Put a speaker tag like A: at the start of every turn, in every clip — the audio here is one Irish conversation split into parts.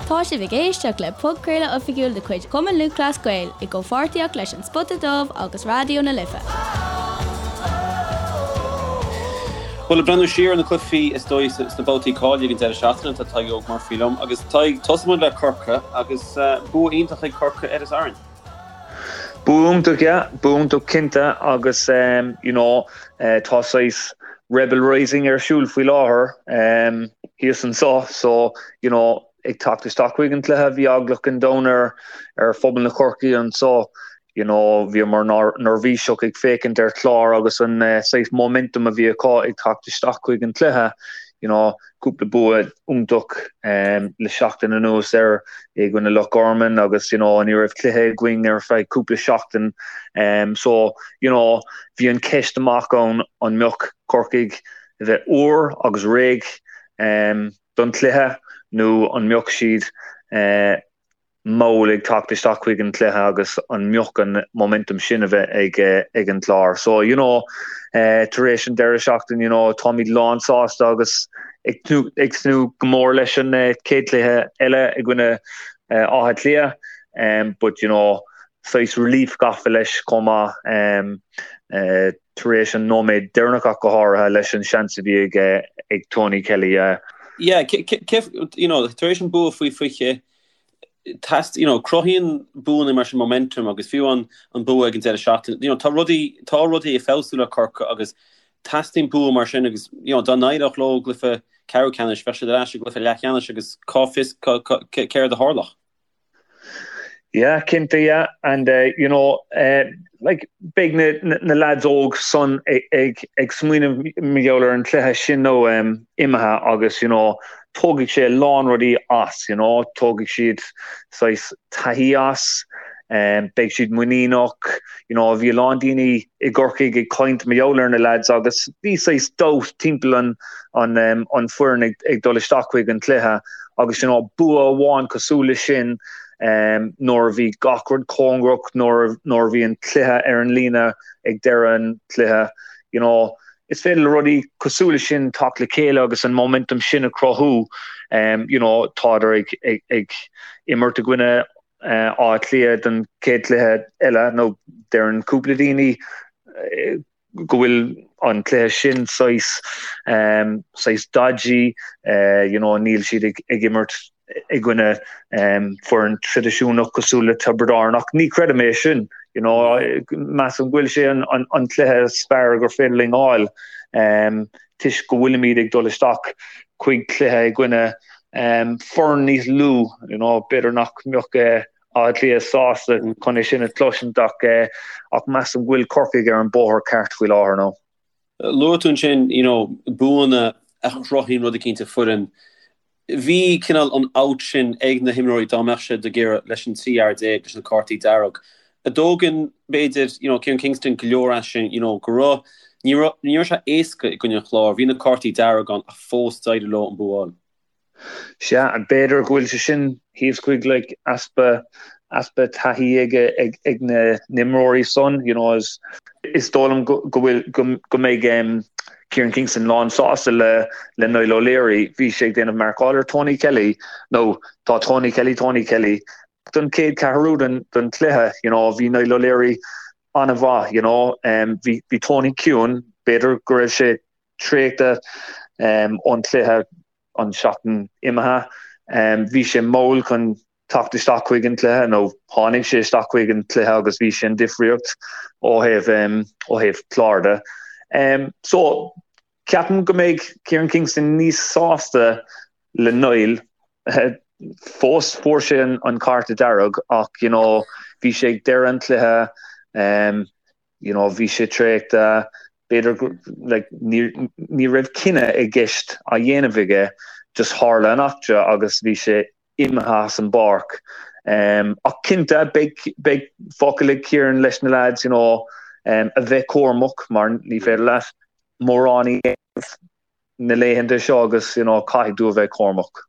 A: Tá sibh ag éisteacht le podchraoladh oifigiúil de chuid Chumann Lúthchleas Gael i gcomhpháirtíocht leis An Spota Dubh agus Raidió na Life.
B: Bhuel, ag breathnú siar ar na cluichí is dóigh sna babhtaí cáilithe ag an deireadh seachtaine, tá Tadhg Óg Murphy liom agus Tadhg, tosóidh muid le Corcaigh agus bua iontach ag Corcaigh ar Árainn.
C: Bua iontach, yeah, bua iontach cinnte agus you know tá saghas Rebel Rising ar siúl faoi láthair thíos anseo so you know ag teacht isteach chuig an cluiche bhí eagla an domhain ar ar phobal na Corcaí anseo you know bhíomar neirbhíseach ag féachaint ar Chlár agus an saghas momentum a bhí acu ag teacht isteach chuig an cluiche you know cúpla bua iontach le seachtain anuas ar i gcoinne Loch Garman agus you know ní raibh cluiche againn ar feadh cúpla seachtain so you know bhí an ceist amach ann an mbeadh Corcaigh a bheith úr agus réidh don chluiche nó an mbeadh siad mall ag teacht isteach chuig an chluiche agus an mbeadh an momentum sin a bheith ag ag an Chlár. So you know tar éis an deireadh seachtain you know táimid lán sásta agus ag tnúth ag tnúth go mór leis an chéad chluiche eile i gcoinne Átha Cliath um, but you know saghas relief gafa leis chomh maith um, uh, tar éis an nóiméad deireanach ach go háirithe leis an seans a bhí ag ag Tony Kelly.
B: Yeah, you know, tar éis an bua faoi 20, teast, you know, cruthaíonn buanna mar sin momentum agus fiú an an bua ag an deireadh seachtaine, you know, tá rudaí, tá rudaí ag feabhsú le Corcaigh agus teastaíonn bua mar sin agus, you know, dá n-éireodh leo i gcluiche ceathrú ceannais, bheadh siad ar ais i gcluiche leathcheannais agus cá bhfios céard a tharlódh.
C: Yeah, cinnte, yeah, and you know, like beidh na na lads óg san ag ag smaoineamh mar gheall ar an cluiche sin nó imithe agus you know tógfaidh sé a lán rudaí as, you know, tógfaidh siad saghas taithí as, beidh siad muiníneach, you know, bhí a lán daoine i gCorcaigh ag caint mar gheall ar na lads agus bhí saghas doubt timpeall an an an foireann ag ag dul isteach chuig an cluiche agus you know bua amháin cosúil le sin nuair a bhí gach rud cóngarach, nuair nuair a bhí an cluiche ar an líne ag deireadh an chluiche, you know is féidir le rudaí cosúil le sin teacht le chéile agus an momentum sin a chruthú. You know tádar ag ag ag imirt i gcoinne Átha Cliath don chéad chluiche eile nó deireann cúpla daoine go bhfuil an cluiche sin saghas saghas dodgy, you know níl siad ag ag imirt i gcoinne foireann traidisiúnach cosúil le Tiobraid Árann ach ní chreidim é sin, you know measaim go bhfuil sé an an an cluiche is fearr gur féidir linn fháil toisc go bhfuilimid ag dul isteach chuig cluiche i gcoinne foireann níos lú, you know b'fhéidir nach mbeadh Áth Cliath sásta chun é sin a chloisint ach ach measaim go bhfuil Corcaigh ar an bóthar ceart faoi láthair
B: nó. Luaigh tú ansin you know buanna a chruthaíonn rud eicínt i foireann. Bhí cineál an out sin ag na himreoirí dá mbeadh siad ag iarraidh leis an 13 fhear leis na cártaí dearg. An dtógann b'fhéidir you know Kieran Kingston go leor as sin you know go raibh ní raibh ní raibh sé éasca i gcoinne an Chláir, bhí na cártaí dearg ann ach fós d'éirigh leo an bua a fháil.
C: Sea, b'fhéidir go bhfuil sé sin thíos chuig like easpa easpa taithí ag ag ag na n-imreoirí san, you know, is is dóigh liom go go bhfuil go go mbeidh um Kieran Kingston lán sásta le le Niall O'Leary, bhí sé ag déanamh marcáil ar Tony Kelly, nó tá Tony Kelly Tony Kelly don chéad ceathrú den den chluiche, you know, bhí Niall O'Leary an-mhaith, you know, um bhí bhí Tony ciúin, b'fhéidir go raibh sé traochta ón chluiche an seachtain imithe. Bhí sé mall chun teacht isteach chuig an chluiche nó tháinig sé isteach chuig an chluiche agus bhí sé an difríocht ó thaobh ó thaobh Chlár de. So ceapaim go mbeidh Kieran Kingston níos sásta le Niall. Fós fuair sé an cárta dearg ach you know bhí sé ag deireadh an chluiche. you know bhí sé traochta, b'fhéidir go like ní ní raibh cinneadh i gceist á dhéanamh aige, just tharla an eachtra agus bhí sé imithe as an bpáirc. Um, ach cinnte beidh beidh focal ag Kieran leis na lads you know um, a bheith cúramach mar ní féidir leat mórán a dhéanamh na laethanta seo agus you know caithfidh tú a bheith cúramach.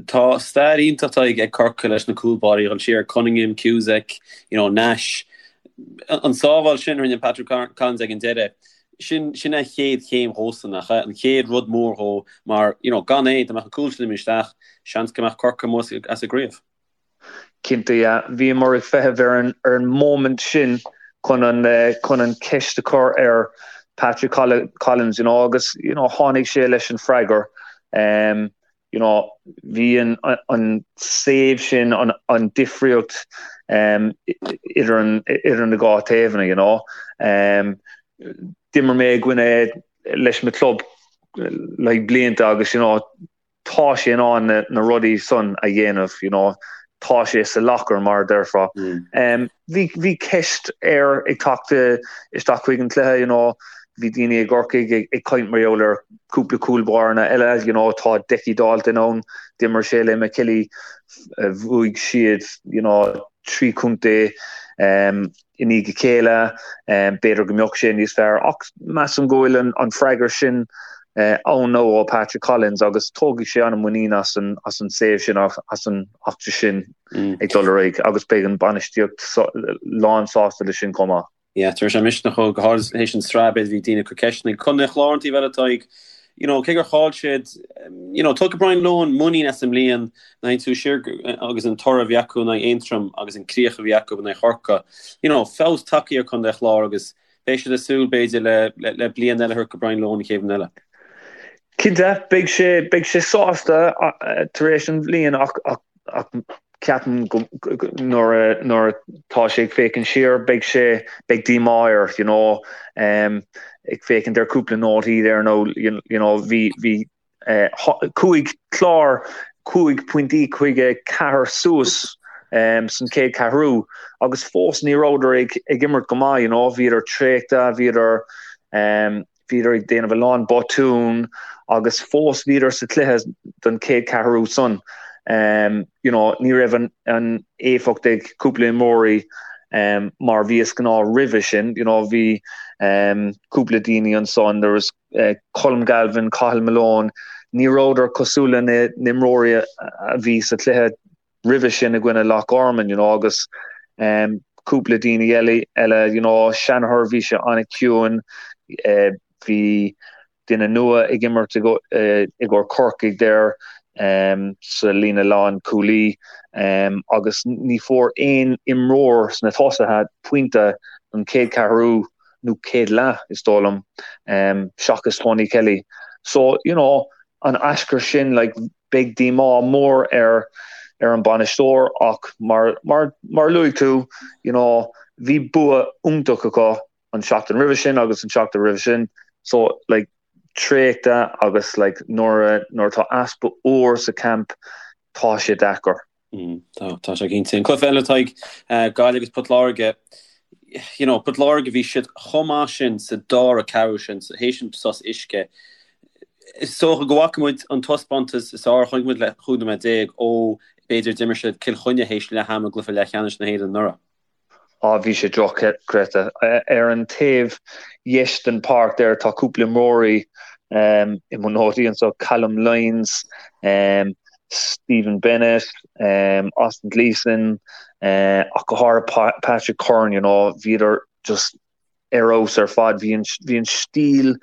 B: Tá stair iontach ag Corcaigh leis na cúl báirí, dul siar, Cunningham, Cusack, you know, Nash. An sábháil sin a rinne Patrick Collins ag an deireadh. Sin sin an chéad chéim dhósan, nach ea? An chéad rud mór dhó mar, you know, gan é, dá mbeadh an cúl sin imithe isteach, seans go mbeadh Corcaigh amuigh as an gcraobh.
C: Cinnte, yeah. Bhíomar ag feitheamh ar an ar an moment sin chun an chun an ceist a chur ar Patrick Collins, you know, agus, you know, tháinig sé leis an freagar. Um, you know, bhí an an save sin an an difríocht um, idir an idir na dhá taobhanna, you know. Um, d'imir mé i gcoinne leis mo club like blianta agus, you know, tá sé in ann na rudaí san a dhéanamh, you know, tá sé sa locker mar a déarfá. Bhí bhí ceist air ag teacht isteach chuig an cluiche, you know, bhí daoine i gCorcaigh ag caint mar gheall ar cúpla cúl báire eile, you know, tá Decky Dalton ann, d'imir sé le McKilly, bhuaigh siad, you know, 3 chontae i ndiaidh a chéile, b'fhéidir go mbeadh sé níos fearr ach measaim go bhfuil an freagra sin ann now ó Patrick Collins agus tógfaidh sé an-mhuinín as an as an save sin as an eachtra sin ag dul ar aghaidh agus beidh an bainistíocht lán sásta leis sin chomh maith.
B: Yeah, tabharfaidh sé misneach dhó, go háirid théis an tsraith, b'fhéidir bhí daoine ag cur ceisteanna. Contae an Chláir an taobh eile, Tadhg, you know, cé gur chaill siad, you know, tógfaidh Brian Lohan muinín as an mbliain, nuair a théann tú siar agus an toradh a bhí acu in aghaidh Aontroim agus an críoch a bhí acu in aghaidh Chorcaí, you know, feabhas tagtha ar Contae an Chláir agus beidh siad ag súil, b'fhéidir, le, le, le bliain eile a thabhairt go Brian Lohan an chéad bhliain eile.
C: Cinnte, beidh sé, beidh sé sásta tar éis an bhliain ach, ach, ach ceapaim go, nuair a, nuair atá sé ag féachaint siar, beidh sé, beidh díomá air, you know, ag féachaint ar cúpla nótaí there nó, you know, bhí, bhí chuaigh Clár 5 pointí chuig 4 suas san chéad cheathrú agus fós ní rabhadar ag, ag imirt go maith, you know, bhíodar traochta, bhíodar, Bhíodar ag déanamh a lán botún agus fós bhíodar sa chluiche don chéad cheathrú san. You know, ní raibh an an éifeacht ag cúpla imreoirí mar bhí is gnáth roimhe sin. You know, bhí cúpla daoine ansan, there was Colm Galvin, Cathal Malone, ní rabhadar cosúil le na n-imreoirí a bhí sa chluiche roimhe sin i gcoinne Loch Garman, you know, agus cúpla daoine eile, eile, you know, Shanagher, bhí sé an-chiúin, bhí duine nua ag imirt i gcomhair Corcaigh there sa líne lán cúlaí agus ní fuair aon imreoir sna tosaithe pointe don chéad cheathrú nó chéad leath, is dóigh liom, seachas Tony Kelly. So, you know, an aischur sin, like, Beidh díomá mór ar ar an bainisteoir ach mar mar mar luaigh tú, you know, bhí bua iontach acu an seachtain roimhe sin agus an seachtain roimhe sin so like traochta agus like nuair a nuair atá easpa úr sa camp tá sé deacair.
B: Tá, tá sé cinnte. An cluiche eile Tadhg, Gaillimh agus Port Láirge, you know, Port Láirge bhí siad chomh maith sin sa dara ceathrú sin, théis an sos uisce. Is dócha go bhfaca muid an taispeántas is fearr, chonaic muid le 15 nóiméad ó b'fhéidir d'imir siad Cill Chainnigh théis leath ama i gcluiche leathcheannais na hÉireann anuraidh.
C: Á, bhí sé dochreidte. Ar an taobh dheis den pháirc there tá cúpla imreoirí i mo nótaí anseo, Callum Lyons, Stephen Bennett, Austin Gleeson, ach go háirithe Patrick Curran, you know, bhíodar just ar fheabhas ar fad. Bhí an, bhí an stíl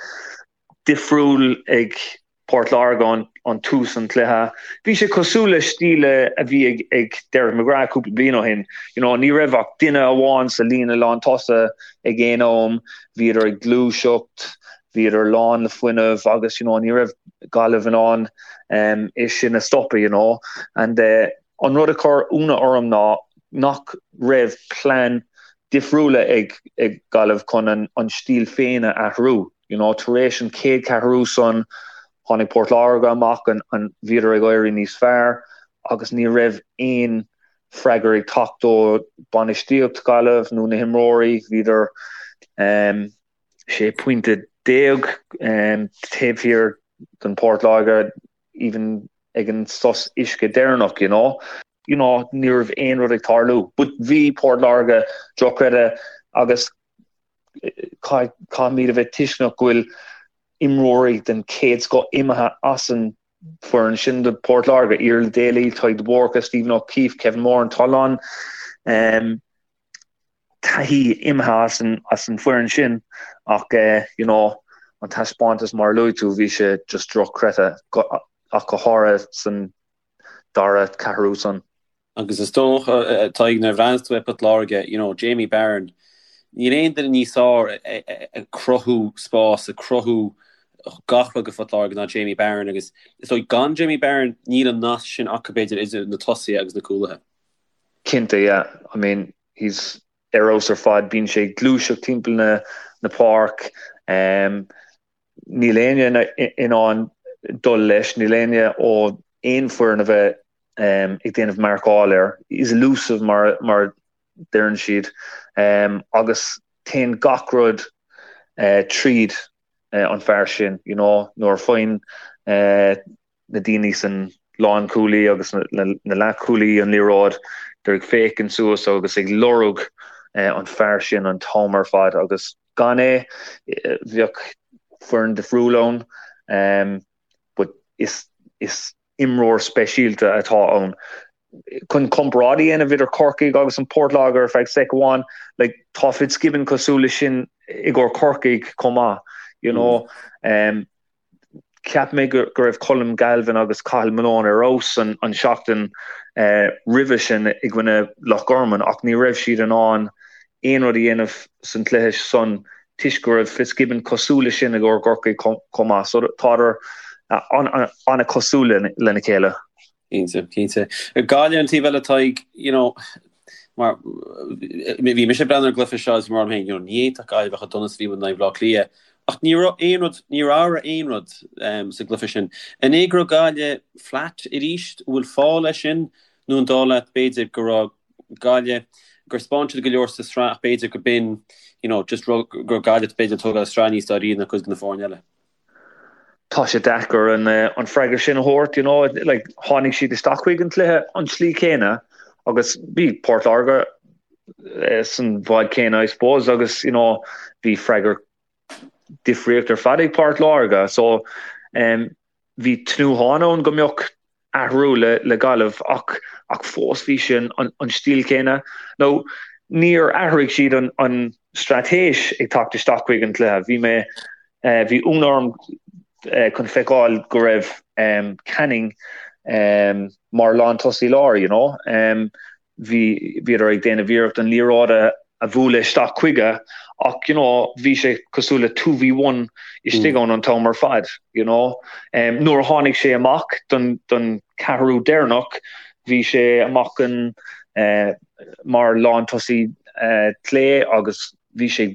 C: difriúil ag Port Láirge an tús an chluiche. Bhí sé cosúil le stíl a bhí ag ag Derek McGrath cúpla bliain ó shin. You know, ní raibh ach duine amháin sa líne lán tosaigh ag aon am, bhíodar ag gluaiseacht, bhíodar lán le fuinneamh agus you know, ní raibh Gaillimh in ann um, é sin a stopadh, you know. And uh, an rud a chuir ionadh orm ná nach raibh plean difriúla ag ag Gaillimh chun an, an stíl féin a athrú. You know, tar éis an chéad cheathrú san, tháinig Port Láirge amach an, an, bhíodar ag éirí níos fearr agus ní raibh aon freagra ag teacht ó bainistíocht Gaillimh nó na himreoirí. Bhíodar um, 16 pointe um, taobh thiar den Port Láirge even ag an sos uisce deireanach, you know. You know, ní raibh aon rud ag tarlú. But bhí Port Láirge dochreidte agus Caithfimid a bheith tuisceanach go bhfuil imreoirí den chéad scoth imithe as an bhfoireann sin do Port Láirge, Iarla Daly, Tadhg de Búrca, Stephen O'Keefe, Kevin Moran, tá a lán. taithí imithe as an as an foireann sin ach you know an taispeántas mar a luaigh tú bhí sé just drochchreidte ach go háirithe san dara ceathrú san.
B: Agus is dócha Tadhg nuair a bhreathnaíos tú ar Port Láirge you know Jamie Barron níl aon duine níos fearr ag cruthú spás ag cruthú gach rud do Phort Láirge ná Jamie Barron agus is dóigh gan Jamie Barron níl an nasc sin acu b'fhéidir idir na tosaithe agus na cúlaithe.
C: Cinnte yeah I mean he's ar fheabhas ar fad bíonn sé ag gluaiseacht timpeall na na páirc um, níl éinne in ann dul leis, níl éinne ó aon foireann a bheith um, ag déanamh marcáil air. He's elusive mar, mar deireann siad um, agus téann gach rud uh, tríd uh, an fear sin, you know, nuair a faigheann uh, na daoine san lánchúlaí agus na leathchúlaí an liathróid, they're ag féachaint suas agus ag lorg an fear sin an t-am ar fad agus gan é bheadh foireann difriúil ann but is is imreoir speisialta atá ann. Chun comparáid a dhéanamh idir Corcaigh agus an Port Láirge ar feadh sec amháin, like tá Fitzgibbon cosúil leis sin i gcomhair Corcaigh chomh maith, you know. Cheap mé go raibh Colm Galvin agus Cathal Malone ar fheabhas an seachtain roimhe sin i gcoinne Loch Garman ach ní raibh siad in ann aon rud a dhéanamh san cluiche san toisc go raibh Fitzgibbon cosúil leis sin i gcomhair Chorcaí chomh maith. So tádar an-chosúil lena chéile.
B: Cinnte, cinnte. Gaillimh an taobh eile Tadhg, you know, mar bhí mise ag breathnú ar an gcluiche seo is mar féin, you know, ní fhéadfadh Gaillimh bheith chomh dona is a bhí in aghaidh Bhaile Átha Cliath ach ní raibh aon rud, níor athraigh aon rud sa gcluiche sin. An é go raibh Gaillimh flat arís, an bhfuil fáth leis sin nó an dóigh leat b'fhéidir go raibh Gaillimh, gur 'spáin siad go leor sa sraith ach b'fhéidir go b'in, you know, just go raibh Gaillimh b'fhéidir ag tógáil an sraith níos dáiríre ná cuid de na foirne eile?
C: Tá sé deacair an an freagra sin a thabhairt, you know, like tháinig siad isteach chuig an cluiche an tslí céanna agus bhí Port Láirge san bhád céanna I suppose agus you know bhí freagra difríocht ar fad ag Port Láirge so um, bhí tnúthán ann go mbeadh athrú le le Gaillimh ach ach fós bhí sé an an stíl céanna. Nó níor athraigh siad an an straitéis ag teacht isteach chuig an cluiche. Bhí mé bhí ionadh orm chun feiceáil go raibh Canning mar lántosaí láir, you know. Bhí bhíodar ag déanamh iarracht an liathróid a a bhualadh isteach chuige ach you know bhí sé cosúil le 2v1 istigh ann an t-am ar fad, you know. Nuair a tháinig sé amach don don ceathrú deireanach bhí sé amach an mar lántosaí clé agus bhí sé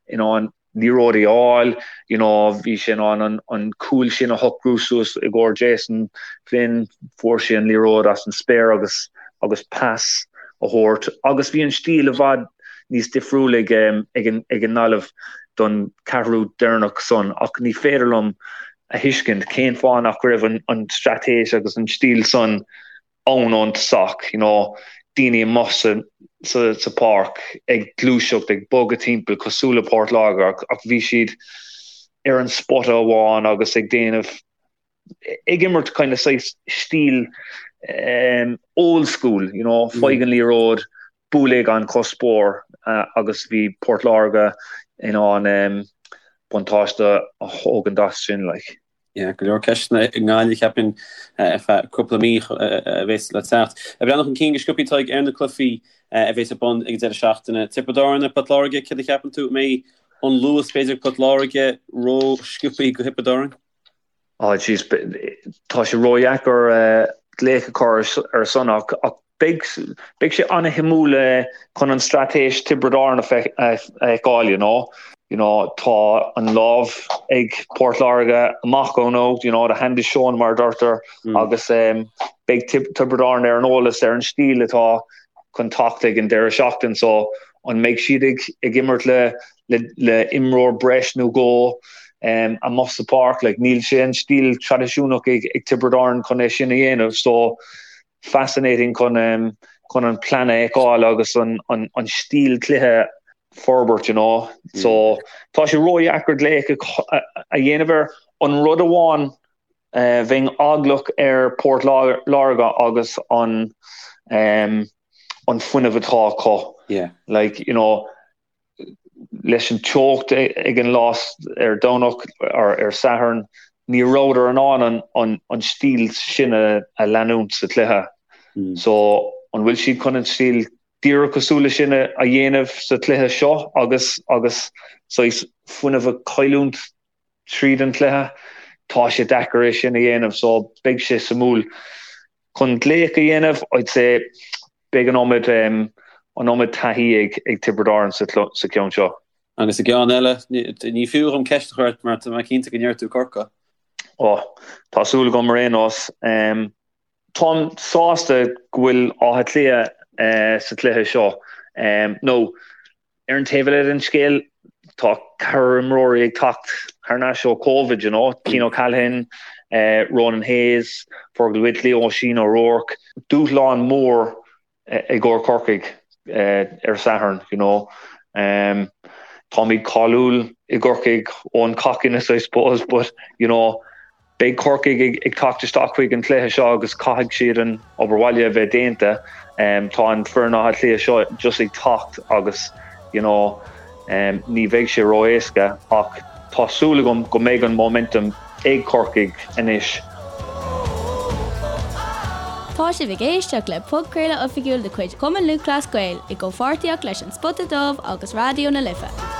C: in ann liathróidí a fháil, you know, bhí sé in ann an, an cúl sin a shocrú suas i gcomhair Jason Flynn, fuair sé an liathróid as an spéir agus, agus pas a thabhairt agus bhí an stíl i bhfad níos difriúil ag, ag an, ag an nGaillimh don ceathrú deireanach san ach ní féidir liom a thuiscint cén fáth nach raibh an, an straitéis agus an stíl san ann ón tosach, you know, daoine amuigh sa, sa, sa pháirc ag gluaiseacht, ag bogadh timpeall cosúil le Port Láirge ach, ach bhí siad ar an spota amháin agus ag déanamh, ag imirt kind of saghas stíl um, old school, you know, faigh an liathróid, buail é gan cuspóir uh, agus bhí Port Láirge in ann um, buntáiste a thógaint as sin, like.
B: Yeah, go leor ceisteanna i nGaillimh, cheapfainn, ar feadh cúpla mí a bheas le teacht. Ag breathnú chun cinn go sciobthaí Tadhg ar na cluichí a bheas ar bun ag an deireadh seachtaine. Tiobraid Árann ar Port Láirge, céard a cheapann tú? An mbeidh an luas b'fhéidir ag Port Láirge ró-sciobthaí do Thiobraid Árann?
C: Oh jeez, tá sé ródheacair glaoch a chur ar son ach Beidh beidh sé an-shuimiúil chun an straitéis Tiobraid Árann a fheiceáil, you know. You know, tá an lámh ag Port Láirge amach ó nó, you know, the hand is shown mar a deirtear agus beidh Tiobraid Árann ar an eolas ar an stíl atá chun teacht ag an deireadh seachtain so an mbeidh siad ag ag imirt le le le imreoir breis nó dhó amuigh sa pháirc, like níl sé an stíl traidisiúnach ag ag Tiobraid Árann chun é sin a dhéanamh so fascinating chun chun an plean a fheiceáil agus an an an stíl cluiche forbairt you know. So tá sé ródheacair glaoch a dhéanamh air. An rud amháin bheinn eaglach ar Port Láirge agus an. an fuinneamh atá acu.
B: Yeah.
C: Like, you know, leis an teocht ag an lá ar Domhnach or ar Satharn, ní rabhadar in ann an an stíl sin a leanúint sa chluiche. So, an bhfuil siad chun an stíl díreach cosúil leis sin a dhéanamh sa chluiche seo agus agus saghas fuinneamh a chailliúint tríd an chluiche? Tá sé deacair é sin a dhéanamh so beidh sé suimiúil. Chun glaoch a dhéanamh, I'd say beidh an iomad an iomad taithí ag ag Tiobraid Árann sa sa cheann seo.
B: Agus an ceann eile, ní fiú dhom ceist a chur ort mar tá mé cinnte go ndeir tú Corcaigh.
C: Ó, tá súil agam ar aon nós. Táim sásta go bhfuil Áth Cliath sa chluiche seo. Nó, ar an taobh eile den scéal, tá ceathrar imreoirí ag teacht thar n-ais ó Covid, you know, Cian O'Callaghan, Ronan Hayes, Fergal Whitley, Oisín O'Rourke. Dúshlán mór i gcomhair Corcaigh ar Satharn, you know. Táimid cáiliúil i gCorcaigh ón cockiness, I suppose, but, you know, beidh Corcaigh ag teacht isteach chuig an chluiche seo agus caithfidh siad an obair bhaile a bheith déanta. Tá an foireann Átha Cliath seo just ag teacht agus, you know, ní bheidh sé ró-éasca ach tá súil agam go mbeidh an momentum ag Corcaigh anois.
A: Tá sibh ag éisteacht le podchraoladh oifigiúil de chuid Chumann Lúthchleas Gael i gcomhpháirtíocht leis An Spota Dubh agus Raidió na Life.